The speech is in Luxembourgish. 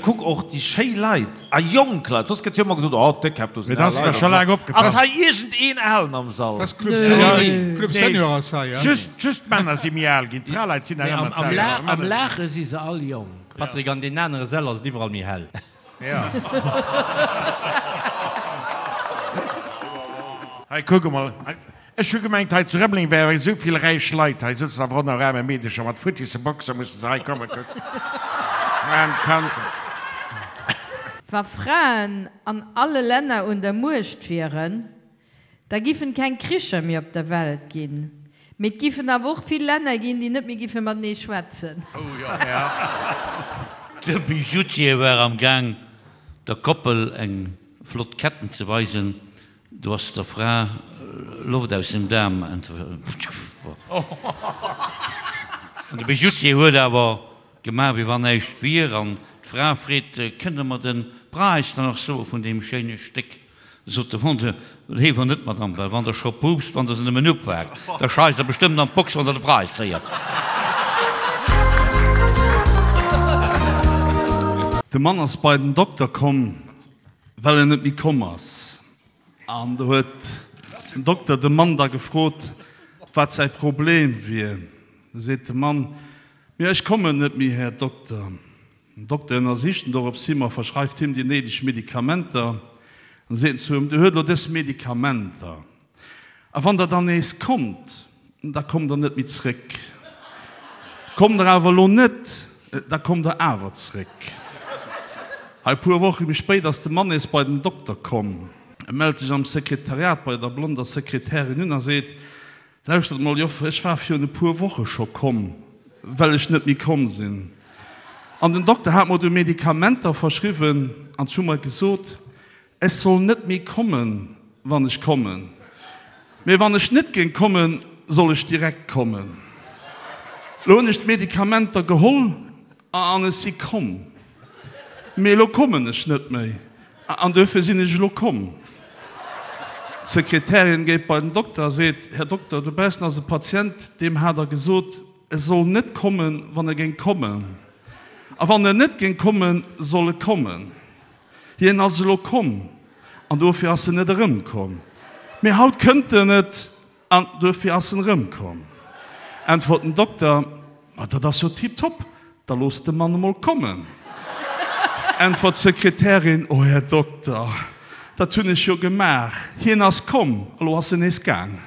kuck och déi schéi Leit a jonk Leit, soss gëtt jo ëmmer gesot, oh d'Déckkäpp, do Mee sinn dat al ass mir Leit scho an laang esou. opgefall. Ass hei iergendeen Alen am Sall? Dat ass Club Senior, Club Senior ass hei, ja. Just, just d'Männer si méi al ginn, d'Fraleit sinn nach Mee ëmmer am, am, d'selwecht. La, Awer am Männer sinn. Laache si se all jonk. Patrick, an deenen anere Säll ass et iwwerall méi hell. Ja. Hei, kuck emol. Ech hu gemengt, hei zu Rëmeleng wäre esou vill räich Leit. Hei sëtzen awer och nach aarme Meedecher mat futtisse Boxer, musse se hei kommen. Kuck, aarm Kand. Wa Fraen an alle Länner un der Muecht wieren, da giffen keng Kricher méi op der Welt ginn. Mee et giffen awer och vill Länner ginn, déi net méi giffe matenee schwätzen. De Bijoutier war am Gaang der Koppel eng flott Ketten ze weisen, do ass der Fra Loft aus dem Daarm entwuer. An de Bijoutier huet awer gemaach wéi wann näischt wier an d'Fra freet, Kënnt Der mer de Präis dann och soe vun deem schéine Stéck? Sot de Vendeur, Léiwer net, Madame, well wann Der scho puupst, wann Der se nëmmen upaakt, da scheisst Der bestëmmt an d'Box, wann Der de Präis héiert. De Mann ass bei den Dokter komm, well en net méi komm ass. An do huet den Dokter de Mann da gefrot, wat säi Problem wier. Du seet de Mann, Mee ech kommen net méi, Här Dokter. Den Dokter ënnersicht en dorops him a verschreift him déi néideg Medikamenter. An seet en zu him, Dir huet elo dës Medikamenter, a wann Der dann nees kommt, da kommt Der net méi zréck. Kommt Der awer elo net, da kommt Der awer zréck. Hei, e puer Woche méi spéit ass de Mann nees bei den Dokter komm. E mellt sech am Sekretariat bei der blonder Sekretärin un a seet, Lauschtert mol, Joffer, ech war virun e puer Woche scho komm, well ech net méi komm sinn. An den Dokter hat mer du Medikamenter verschriwwen an zu mer gesot, ech soll net méi kommen, wann ech kommen. Mee wann ech net géing kommen, soll ech direkt kommen. Lo hunn ech d'Medikamenter geholl an ech si komm. Mee elo kommen ech net méi an duerfir sinn ech elo komm. D'Sekretärin geet bei den Dokter a seet, Här Dokter, dobaussen ass e Patient, deem hat Der gesot, e soll net kommen, wann e géing kommen. A wann en net géing kommen, soll e kommen. Hien ass elo komm an dofir ass en net erëmkomm. Mee haut kënnt en net An duerfir ass en erëmkomm. Äntwert den Dokter, Ma dat ass jo tiptop, da looss de Mann emol kommen. Äntwert d'Sekretärin, O Här Dokter, dat hunn ech jo gemaach, hien ass komm, elo ass en nees gaang.